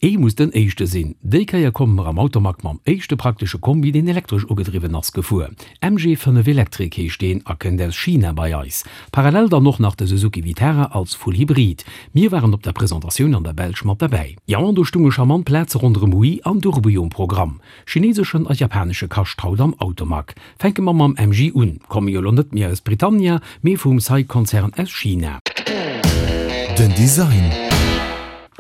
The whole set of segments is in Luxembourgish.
Ee muss den éischte sinn. Déi Kéier komme mer am Automag mam éischte praktesche Kombi, deen elektresch ugedriwwen ass, gefuer. MG 5 Electric heescht deen a kënnt aus China bei eis. Parallel dann och nach de Suzuki Vitara als Full Hybrid. Mir waren op der Presentatioun an der Belsch mat derbäi. Jo, an do stunge charmant Plaze ronderëm Hui an Durbuy um Programm. Chineseschen a japanesche Kascht haut am Automag. Fänke mer mam MG un. Komme jo lo net méi aus Britannia, mee vum SAIC-Konzern aus China. Den Design.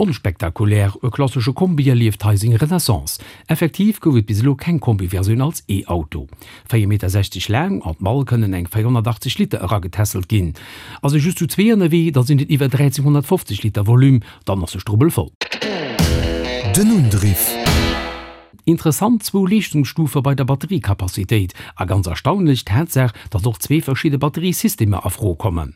Onspektakulär, e klassesche Kombi erlieft hei seng Renaissance. Effektiv gouf et bis elo keng Kombi-Versioun als E-Auto. 4,60 Meter laang, an d'Mall kënnen eng 480 Liter eragetässelt ginn. Ass ee just zu zwee ënnerwee, da sinn et iwwer 1350 Liter Volume, dann ass de Strubbel voll. Den Undriff. Interessant zwou Leeschtungsstufe bei der Batteriekapazitéit a ganz erstaunlech d'Tatsaach, datt och zwee verschidde Batteriesystemer a Fro kommen.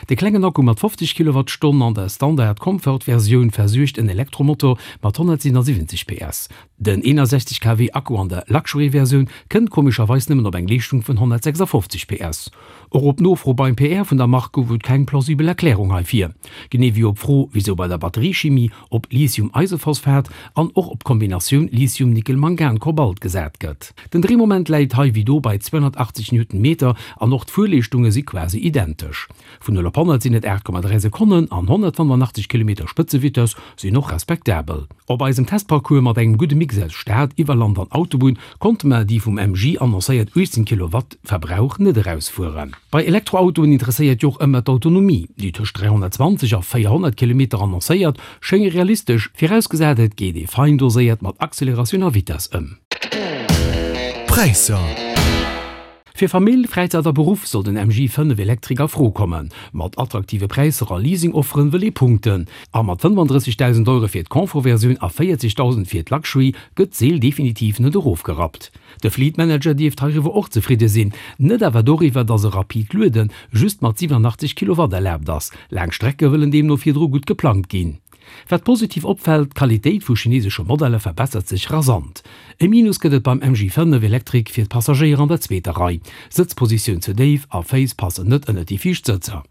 De klengen Akku mat 50 Kilowattstonn an der Standard Comfort Versioun versuergt en Elektromotor mat 177 PS. Den 61 kW Akku an der Luxury Versioun kënnt komescherweis nëmmen op eng Leeschtung vun 156 PS. Och op Nofro beim PR vun der Mark gouf et keng plausibel Erklärung heifir. Genee wéi op d'Fro, wisou bei der Batteriechimie op Lithium-Eisephosphat an och op d'Kombinatioun Lithium-Nickel-Mangan-Kobalt gesat gëtt. Den Dréimoment läit hei wéi do bei 280 Newtonmeter an och d'Fuerleeschtunge si quasi identesch. Vun 0 op 100 sinn et 8,3 Sekonnen an 185 Kilometer Spëtzevitess sinn och respektabel. Op eisem Testparcours mat engem gudde Mix aus Stad, Iwwerland an Autobunn konnte mer déi vum MG annoncéiert 18 Kilowatt Verbrauch net erausfueren. Bei Elektroautoen interesséiert jo och ëmmer d'Autonomie. Déi tëscht 320 a 400 Kilometer annoncéiert, schénge realistesch, virausgesat et geet ee fein doséiert mat Acceleratioun a Vitess ëm. Präisser. Fir Famill, Fräizäit a Beruff soll den MG 5 Electric a Fro kommen. Mat attraktive Präisser a Leasing-Offeren wëll ee punkten. A mat 35.000 Euro fir d'Confort-Versioun a 40.000 fir d'Luxury gëtt d'Seel definitiv net erofgerappt. De Fleet Manager dierft heiriwwer och zefridde sinn, net awer doriwwer, datt e rapid Luede just mat 87 Kilowatt erlaabt ass. Laang Strecke wëllen deemno virdru gutt geplangt ginn. Wat positiv opfält, d'Qualitéit vu chinesesche Modeller verbessert sech rasant. E Minus gëtt et beim MG 5 Electric fir d'Passagéier an der zweeter Rei, Sëtzpositioun ze déif a Féiss passen net ënnert déi viischt Sëtzer.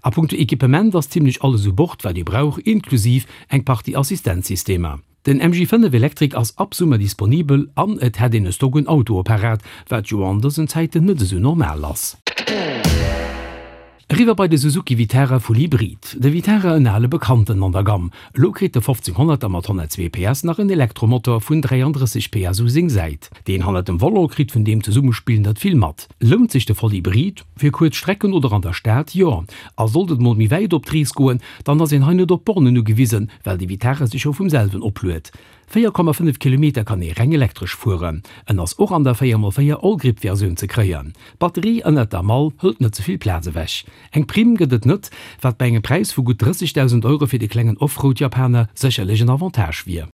A punkto Equipement ass zimmlech alles u Bord wat ee brauch, inklusiv eng Partie Assistenzsystemer. Den MG 5 Electric ass ab Summer disponibel an et hätt een e Stock un Autoe parat, wat jo an dësen Zäiten net esou normal ass. Eriwwer bei de Suzuki Vitara Full Hybrid. De Vitara, en ale Bekannten an der Gamm. Elo kritt de 1500er mat 102 PS nach en Elektromotor vun 33 PS u seng Säit. Deen hannert dem Volant kritt vun deem Zesummespill net vill mat. Lount sech de Voll Hybrid? Fir kuerz Strecken oder an der Stad, jo. A sollt et mol méi wäit op d'Rees goen, dann ass een hei net op Bornen ugewisen, well de Vitara sech jo vum selwen opluet. 4,5 Kilometer kann ee reng elektresch fueren. En ass och an der 4x4 Allgrip Versioun ze kréien. D'Batterie ënnert der Mall hëlt net ze vill Plaz ewech. Eng Primm gëtt et net, wat bei engem Präis vu gutt 30.000 Euro fir de klengen Offroad-Japaner sécherlech en Avantage wier.